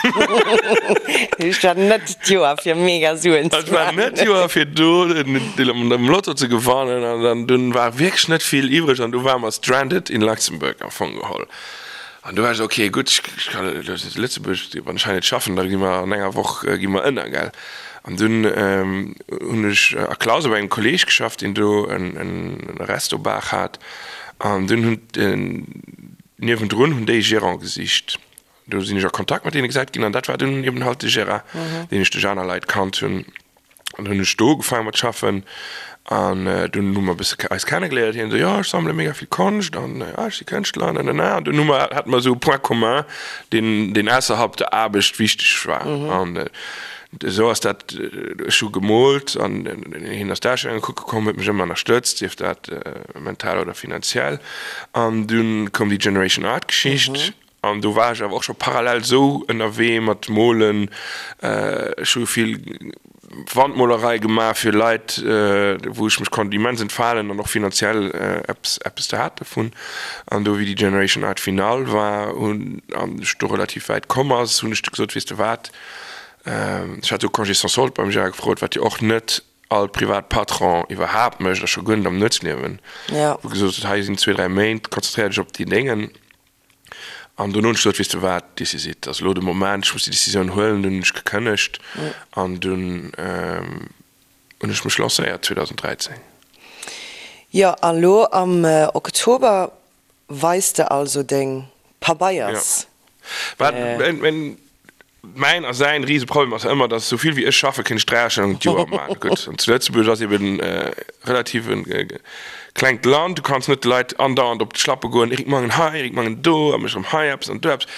Et war net d'Joer fir mega Suen ze Et war net d'Joer fir do am Lotto ze gewannen an dann dunn war wierklech net vill iwwreg an du ware mer stranded in Luxembourg am Fong geholl. An du war ech esou, ok gutt, ech kann Lëtzebuerg, wann ech hei net schaffen, da gi mer an enger Woch gi mer ënner, gell. An dunn hunn ech a Clausen bei engem Kolleeg geschafft, deen do en Resto-Bar hat an dunn hunn Niewendrun hunn déi e Gérant gesicht. Do sinn ech a Kontakt mat deene gesat ginn an dat war dunn eben halt de Gérard, deen ech duerch aner Leit kannt hunn. An dunn hunn ech do ugefaange mat schaffen an dunn hu mer e bësse eis kennegeléiert. Hien esou, jo ech sammele mega vill Konscht an ah ech si Kënschtler an nanana. An dunn hu mer, hate mer esou e Point commun, deen, deen ausserhalb der Aarbecht wichteg war. An Esou ass dat, ech hu gemoolt an hien ass d'Ausstellunge kucke komm, huet mech ëmmer ënnerstëtzt, sief dat mental oder finanziell. An dunn koum déi Generation Art Geschicht an do war ech awer och scho parallel esou ënnerwee mat molen. Ech hu vill. Wandmolerei gemaach fir Leit, wou ech mech konnt immens entfalen an och finanziell eppes eppes hat dovun. An do wéi déi Generation Art Finale war hunn an ech do relativ wäit komm ass, hunn ech du gesot, weess de wat, ech hat do Congé sans solde beim Gérard gefrot, wat jo och net all privat Patron iwwerhaapt mécht a scho guer net am Nuetsliewen, wou gesot huet, hei sinn zwee, dräi Méint, konzentréier dech op déi Déngen. An dunn hunn ech gesot, weess de wat, this is it, ass elo de Moment, ech muss déi Decisioun huelen. Dunn hunn ech gekënnegt an dunn hunn ech mech lancéiert 2013. Jo, a lo am Oktober weis de also deng Pabeiers. Jo. Mäin a säin Riseproblem ass ëmmer, dass esou vill wéi ech schaffen, kéint ech 3 Ausstellungen d'Joer maachen. Gutt, an zu Lëtzebuerg ass eben relativ e klengt Land, du kanns net de Leit andauernd op d'Schlappe goen, Eric Mangen hei, Eric Mangen do, a mech erëm hei eppes an do eppes.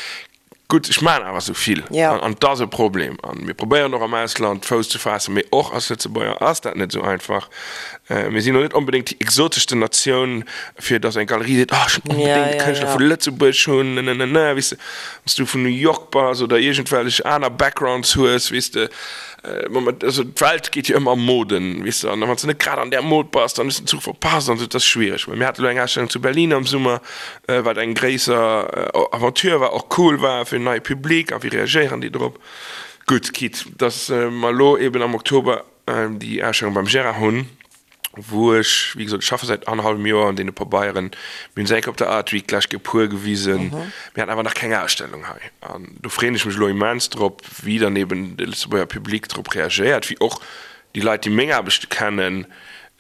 Gutt, ech maachen awer esou vill an et ass e Problem. A mir probéieren och am Ausland Fouss ze faassen, mee och als Lëtzebuerger ass dat net esou einfach. Mir sinn elo net onbedéngt déi exoteschste Natioun, fir dass eng Galerie seet, oh ech wëll onbedéngt e Kënschtler vu Lëtzebuerg hunn, nenenene, weess de. Wann s du vun New York bass oder iergendwellech aner Backgrounds hues, weess de, also d'Welt geet jo ëmmer a Moden, weess de, an wann s de net grad an där Mod bass, dann hues de den Zuch verpasst an esou, dat ass schwiereg. Mä mir hate elo eng Ausstellung zu Berlin am Summer, wat eng gréisser Aventure war, och cool war fir en neie Public a wéi reagéieren déi drop. Gutt, quitte dass mer elo eben am Oktober déi Ausstellung beim Gérard hunn, wou ech, wéi gesot, ech schaffe säit annerhallwem Joer un deene Pabeieren, mir hunn se eng Kéier op der Art Week d'lescht Kéier e puer gewisen, mir haten awer nach keng Ausstellung hei. An do freeën ech mech elo immens drop, wéi dann eben de Lëtzebuerger Public drop reagéiert, wéi och déi Leit, déi meng Aarbechte kennen,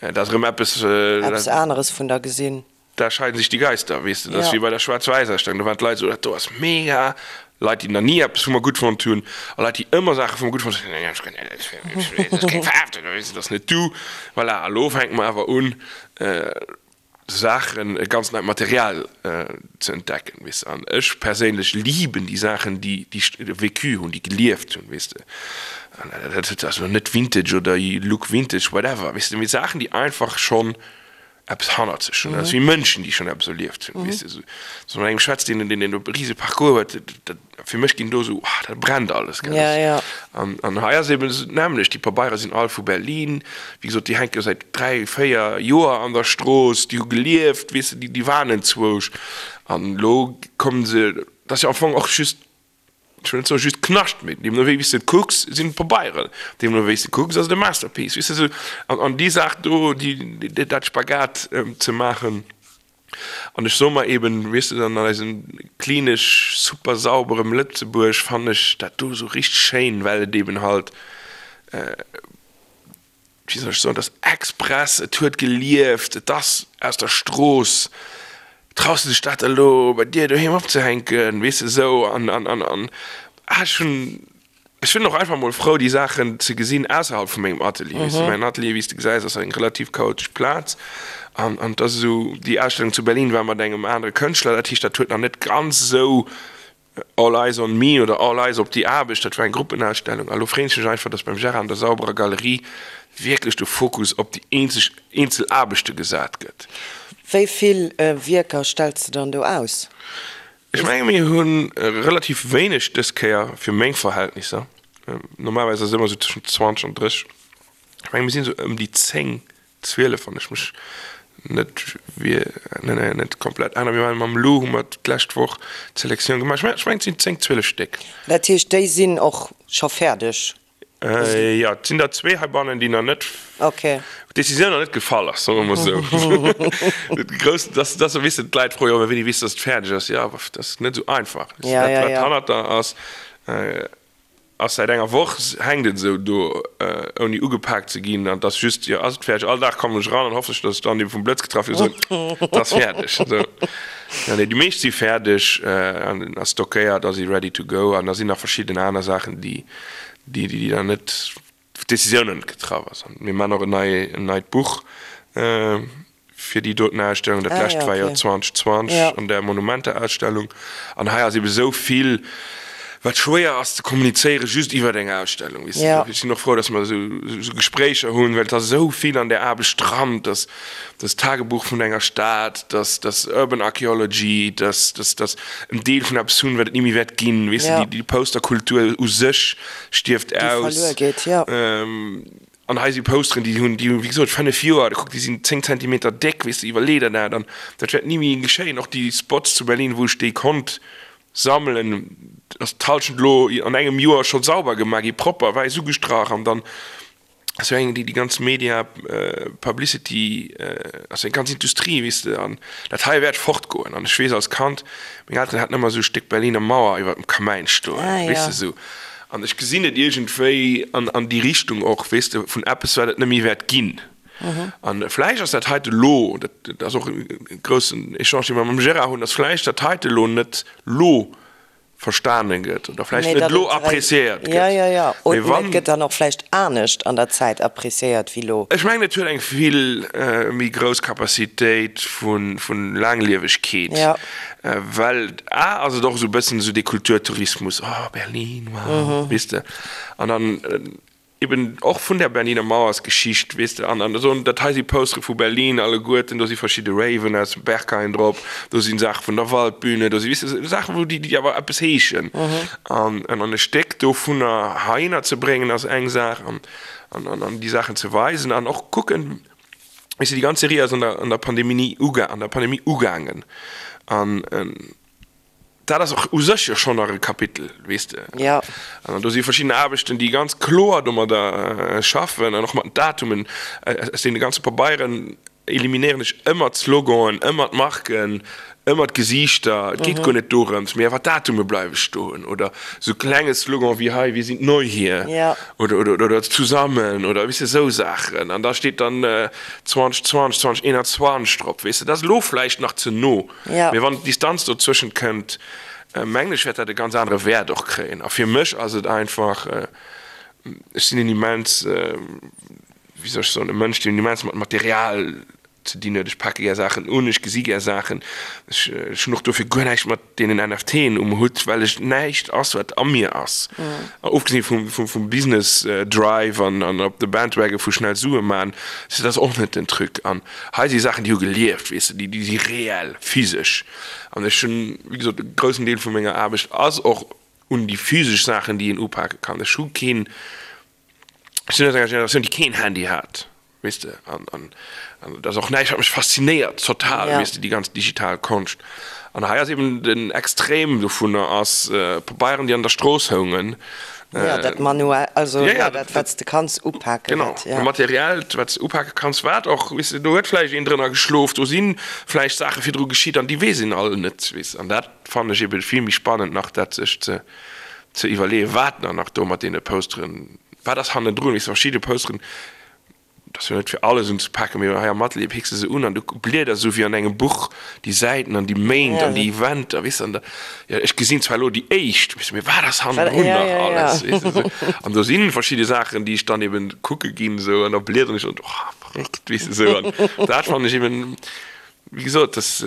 dat ass erëm eppes, Eppes aneres vun der gesinn. Da scheiden sich die Geister, weess de. Dat ass wéi bei der Schwaarz-Wäiss-Ausstellung, do waren d'Leit esou, dat do ass mega. Leit, déi nach ni eppes vu mer gutt fonnt hunn a Leit, déi ëmmer Saache vu mer gutt fonnt hunn, dat ass keng Faarf, dat ass net du. Voilà, a lo fänke mer awer un, Saachen, e ganz neit Material ze entdecken, weess de. An ech perséinlech liben déi Saachen, déi vécu hunn, déi gelieft hunn, weess de. An dat ass elo net Vintage oder Look Vintage, whatever, weess de, mee Saachen, déi einfach schonn eppes hannert sech hunn. Dat ass wéi Mënschen, déi schonn eppes erlieft hunn, weess de. Esou, wann mat engem schwätzt, deen, deen e rise Parcours huet, dat, fir mech ginn do esou, ah, dat brennt alles, gell. Ja, ja. An, an hei ass eben esou d'nämmlecht, déi Pabeiere sinn all vu Berlin, wéi gesot, déi hänke säit 3, 4 Joer an der Strooss, déi hu gelieft, weess de, déi, déi waren enzwousch. An elo kommen se, dat ass jo am Fong och just Ech wëll net soen just Knascht, mee deemno wéi s de et kucks, sinn et Pabeieren. Deemno wéi s de kucks, ass et e Masterpiece. Weess de, esou an, an déi Saach do, déi, dat Spagat ze maachen. An ech soe mer eben, weess de, dann an eisem klinesch super sauberem Lëtzebuerg fannen ech dat do esou richteg schéin, well et eben halt, wéi soll ech soen, et ass express, et huet gelieft, et ass aus der Strooss, traus de dech dat elo bei dir doheem opzehänken, weess de, esou an, an, an, an ah ech hunn, ech sinn och einfach mol frou déi Saachen ze gesinn ausserhalb vu mengem Atelier, weess de, mäin Atelier, wéi s de gesäis, ass eng relativ chaotesch Plaz an, an et ass esou, déi Ausstellung zu Berlin war mat engem anere Kënschtler, dat heescht, dat huet nach net ganz esou All Eyes on Me oder All Eyes op déi Aarbecht, dat war eng Gruppenausstellung. A lo freen ech mech einfach, dass beim Gérard an der sauberer Galerie wierklech de Fokus op déi eenzeg eenzel Aarbechte gesat gëtt. Wéi vill Wierker stells de dann do aus? Ech menge mir hu relativ wéineg dës Kéier fir meng Verhältnisser. Normalerweis ass et ëmmer esou tëschent 20 an 30. Ech menge mir sinn esou ëm déi 10 12, wann ech mech net net komplett änneren. Mir waren mam Lou, hu mer d'lescht Woch d'Selektioun gemaach. Ech mengen, et sinn 10, 12 Stéck. Dat heescht, déi sinn och scho fäerdeg? Jo, et sinn der zwee heibannen, déi nach net, wou d'Decisioun nach net gefall ass, soe mer emol esou. Grouss, dass, dass, weess de, d'Leit froe jo ëmmer, wéini weess de, dass et fäerdeg ass? Jo, dat ass net esou einfach. Dat, wat hannert der ass, Ass säit enger Woch hänkt et esou do ouni ugepaakt ze ginn an et ass just, jo ass et fäerdeg. All Dag kommen ech eran an hoffen ech, datt ech dann ebe vum Blëtz getraff ginn an soen, et ass fäerdeg. Esou. Jo nee, déi meescht si fäerdeg an a stockéiert a si ready to go an da sinn nach verschidden aner Saachen, déi déi déi dann net, wou d'Decisioun nach net getraff ass. An mir maachen och en nei en neit Buch fir déi doten Ausstellung. Dat lescht war jo 2020 an der Monumenter-Ausstellung. An hei ass ebe sou vill. Wat schwéier ass ze kommunizéieren just iwwert eng Ausstellung, weess de. Ech sinn och frou, datt mer esou Gespréicher hunn, well et ass esou vill an där Aarbecht dran, dass das Tagebuch vun enger Stad, dass dass Urban Archaeology, dass dass dass en Deel vun eppes hunn, wat et ni méi wäert ginn, weess de, déi Posterkultur u sech stierft aus. Déi verluer geet, jo. An hei si Posteren, déi hunn, déi hunn, wéi gesot, 5 Joer, da kuck, déi sinn 10 Zentimeter déck, weess de, iwwerlee der dat an dat wäert ni méi geschéien. Och déi Spots zu Berlin, wou ech déi konnt Sammelen, ass d'Halschent elo an engem Joer scho sauber gemaach gi, propper, wäiss ugestrach an dann ass jo eng déi déi ganz Media Publicity ass jo eng ganz Industrie, weess de, an dat hei wäert fortgoen. An ech weess als Kand, meng Elteren haten ëmmer esou e Stéck Berliner Mauer iwwer dem Kamäin stoen, weess de, esou. An ech gesinn et iergendwéi an an déi Richtung och, weess de, vun eppes wat et net méi wäert ginn. An vläicht ass dat heite lo, dat ass och e groussen Echange, dee mer mam Gérard hunn, dass vläicht dat heite lo net lo verstane gëtt oder vläicht net lo appréciéiert gëtt. Jo, jo, jo. Oder et gëtt dann och vläicht anescht an der Zäit appréciéiert wéi lo. Ech mengen, et huet eng vill méi grouss Capacitéit vu Laangliewegkeet, well a ass et och esou e bëssen esou dee Kulturtourismus, oh Berlin, wow, weess de. An dann Eben och vun der Berliner Mauersgeschicht, weess de, an an esou, dat hei si Postere vu Berlin alleguerten, do si verschidde Raven aus dem Berghain drop, do si Saache vun der Waldbühne, do si, weess de, Saachen, wou déi, déi awer eppes heeschen. An an e Stéck dovunner heihinner ze bréngen ass eng Saach, an an an déi Saachen ze weisen an och kucken, weess de, déi ganz Serie ass an der an der Pandemie uga an der Pandemie ugaangen an. Dat ass och u sech jo schonn nach e Kapitel, weess de. Jo. An do si verschidden Aarbechten, déi ganz kloer domadder schaffen an och mat den Datumen. Aus deene ganze Pabeieren eliminéieren ech ëmmer d'Sloganen, ëmmer d'Marken, ëmmer d'Gesiichter. Et geet guer net dorëms, mee awer d'Datume bleiwe stoen. Oder esou klenge Slogan wéi hei, Wir sind neu hier. Jo. Oder, oder, oder zusammen oder, weess de, esou Saachen. An da steet dann 2020, 2021 drop, weess de. Dat ass elo vläicht nach ze no. Mee wann d'Distanz dozwëschent kënnt, mengen ech, wäert dat e ganz anere Wäert och kréien. A fir mech ass et einfach, ech sinn en immens, wéi soll ech soen, e Mënsch, deen immens mat Material ze dinn huet. Ech pake gär Saachen un, ech gesi gär Saachen. Ech hunn och dofir guer näischt mat deenen NFTen um Hutt, well ech näischt ass, wat a mir ass, ofgesinn vum Business Drive an op de Bandwagon vu schnell Sue man, dat ass och net den Truc. An Hei si Saachen, déi hu gelieft, weess de, déi si reell, physesch. An ech hunn, wéi gesot, e groussen Deel vu menger Aarbecht ass och un déi physesch Saachen, déi een upake kann. Ech hu keen, ech sinn aus enger Generatioun, déi keen Handy hat, weess de, an, an, an dat ass och näischt, wat mech faszinéiert total, weess de, déi ganz digital Konscht. An hei ass eben den Extrem dovunner ass Pabeieren, déi an der Strooss houngen, Ja, dat manuell, also ja, dat wat s de kanns upaken. Genau, ja. Materiellt, wat s de upake kanns, wat och, weess de, do huet vläicht een drënner geschlof, do si vläicht Saache virdru geschitt an déi weess een all net, weess de. An dat fannen ech ebe vill méi spannend nach, dat sech ze ze iwwerleeën, wat nach nach do mat deene Posteren, wat ass hannendrun, weess de, verschidde Posteren, Et ass jo net fir alles unzepaken, mee hei am Atelier picks de se un an du blieders esou wéi an engem Buch déi Säiten an déi Méint an déi Eventer, weess de. An da, jo, ech gesinn zwar elo déi éischt, weess de, mee wat ass hannendrun nach alles, weess de esou. An do si verschidde Saachen, déi ech dann eben kucke ginn esou an da bliederen ech an, oh, verréckt, weess de esou. An dat fannen ech eben, wéi gesot, dass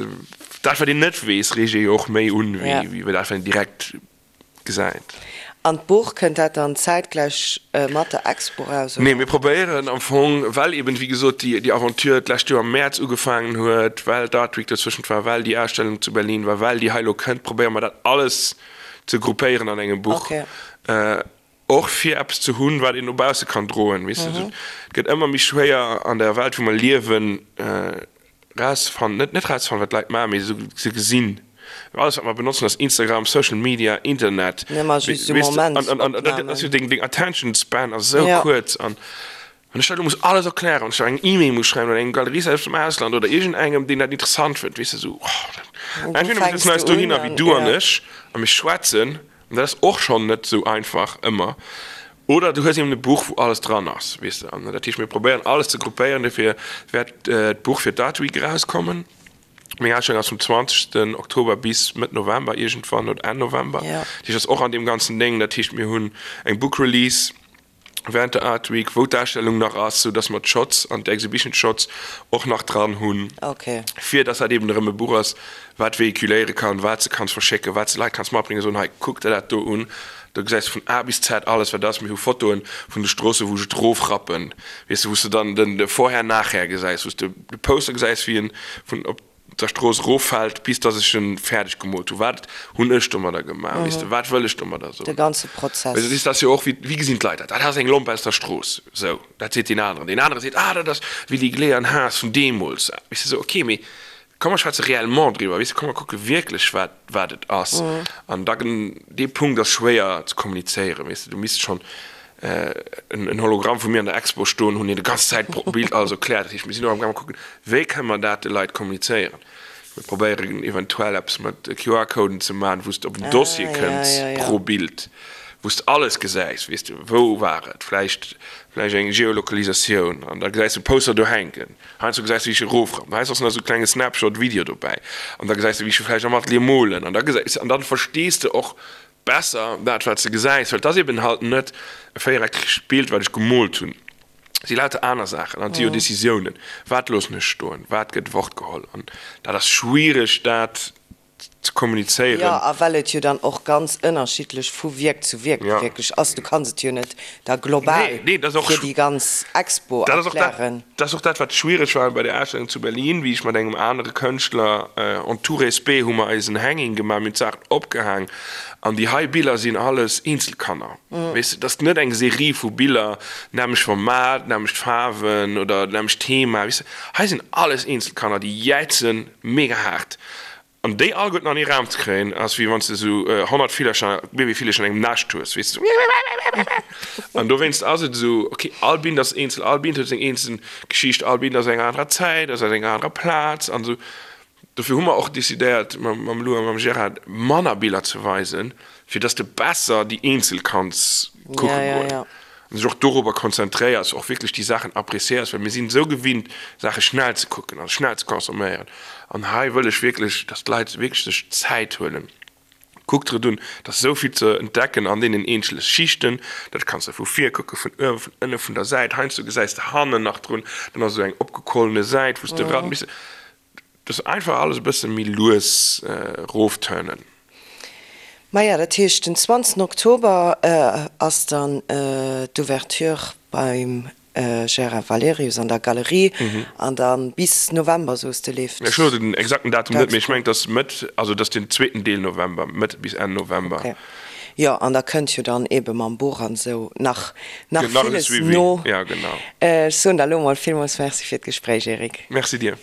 dat, wat een net weess, reegt ee jo och méi un, wéi dat, wat een direkt gesäit. An d'Buch, kënnt dat dann zäitgläich mat der Expo raus, oder? Nee, mir probéieren am Fong, well eben, wéi gesot, déi Aventure d'lescht Joer am Mäerz ugefaangen huet, well d'Art Week dozwëschent war, well déi Ausstellung zu Berlin war, well déi hei elo kënnt, probéiere mer dat alles ze gruppéieren an engem Buch. Och fir eppes ze hunn, wat een no bausse kann droen, weess de. Et gëtt ëmmer méi schwéier an der Welt, wou mer liewen, Rauszefannen, net net rauszefannen, wat d'Leit maachen, mee se ze gesinn. Alles wat mer benotzen ass Instagram, Social Media, Internet. Just esou An dat ass jo deng deng Attention Span ass esou kuerz an wann ech dat elo muss alles erklären, wann ech da eng E-Mail muss schreiwen oder engem Galerist aus dem Ausland oder iergendengem deen dat interessant fënnt, weess de esou, oh, entweder mir sëtzen eis dohinner wéi du an ech a mir schwätzen An dat ass och schonn net esou einfach ëmmer. Oder du hues eben e Buch, wou alles dran ass, weess de. An dat heescht, mir probéieren alles ze gruppéieren. Dofir wäert d'Buch fir d'Art Week erauskommen. Meng Ausstellung ass vum 20. Oktober bis Mëtt November iergendwann oder Enn November. Dat heescht, ass och an deem ganzen Déng. Dat heescht, mir hunn eng Book Release. Während der Art Week, wou d'Ausstellung nach ass, sou dass mer d'Shots an d'Exhibition Shots och nach dran hunn, fir dass dat eben erëm e Buch ass, wat véhiculéiere kann, wat s de kanns verschécken, wat s de Leit kanns matbréngen, soen, hei, kuck der dat do un, do gesäis de vun A bis Z alles, wat ass. Mir hu Fotoen vun de Stroosse wou ech et erofrappen, weess de, wou s de dann den Vorher-Nachher gesäis, wou s de de Poster gesäis, wéi en vun op der Strooss eroffält, bis dass ech en fäerdeg gemoolt hu. Wat hunn ech domadder gemaach, weess de, wat wëll ech domadder soen? De ganze Prozess. Weess de, dat ass jo och, wéi, wéi gesinn d'Leit dat? Dat ass eng Lomp aus der Strooss, sou, dat seet deen aneren. Deen anere seet, ah, dat ass wéi déi Gléiern Haas vun deemools. Weess de, sou, ok, mee komm mer schwätze réellement driwwer, weess de, komm mer kucke wierklech, wat, wat et ass. An da, dee Punkt ass schwéier ze kommunizéieren, weess de, du misst schonn en Hologramm vu mir an der Expo stoen hunn, deen de ganz Zäit pro Bild alles erkläert. Dat heescht, mir sinn och amgaange kucken, wéi kënne mer dat de Leit kommunizéieren. Mir probéieren eventuell eppes mat QR-Coden ze maachen, wou s de op en Dossier kënns pro Bild, wou s de alles gesäis, weess de, wou war et, vläicht vläicht eng Geolokalisatioun an da gesäis de Poster do hänken. Heiansdo gesäis de wéi ech erofrappen, heiansdo ass nach esou e klenge Snapshot-Video dobäi an da gesäis de wéi ech vläicht am Atelier molen an da gesäis an dann verstees de och Besser dat wat s de gesäis, well et ass eben halt net e véiereckegt Bild wat ech gemoolt hunn, et si lauter aner Saachen an et si jo Decisiounen, wat loossen ech stoen, wat gëtt fort geholl an dat ass schwiereg dat ze kommunizéieren. Jo, a well et jo dann och ganz ënnerschiddlech vu Wierk zu Wierk wierklech ass, du kanns et jo net da global fir déi ganz Expo erklären. Dat ass och dat, wat schwiereg war bei der Ausstellung zu Berlin, wéi ech mat engem anere Kënschtler, en tout respect, hu mer eis en Hanging gemaach, mir hunn d'Saachen opgehaang an déi hei Biller sinn alles Eenzelkanner. Weess de, et ass net eng Serie vu Biller, nämmlecht Format, nämmlecht Faarwen oder nämmlecht Thema, weess de. Hei sinn alles Eenzelkanner, déi jäizen mega haart. An déi alleguerten an ee Raum ze kréien, ass wéi wann s de esou 100 Villercher, Babyvillercher an engem Nascht hues, weess de, esou. An dowéinst ass et esou, ok, all Bild ass eenzel, all Bild huet seng eenzel Geschicht, all Bild ass enger anerer Zäit, ass aus enger anerer Plaz an esou. Dofir hu mer och decidéiert, mam Lou a mam Gérard, manner Biller ze weisen, fir dass de besser déi eenzel kanns kucke goen an dech och dorobber konzentréiers, och wierklech déi Saachen appréciéiers, well mir sinn esou gewinnt, Saache schnell ze kucken a schnell ze consomméieren. An hei wëll ech wierklech, dass d'Leit wierklech sech Zäit huelen. Kuck der et un, et ass esou vill ze entdecken an deenen eenzele Schichten. Dat kanns de vu vir kucken, vun uewen, vun ënne, vun der Säit. Heiansdo gesäis de hannen nach drun, dann ass esou eng opgequollene Säit, wou s de eran. Dass einfach alles e bësse méi lues rofturnen. Maja, dat heescht den 20 Oktober ass dann d'Ouverture beim Gérard Valerius an der Galerie an da bis November, soos de, leeft Ech hu den exakten Datum net, mee ech mengen et ass Mëtt, also et ass den zweeten Deel November, Mëtt bis Enn November. Ok, jo, an da kënnt jo dann eebe mam Buch an esou nach nach villes no. Ja, genau. Ech soen der elo mol villmools Merci fir d'Gespréich, Eric. Merci dir.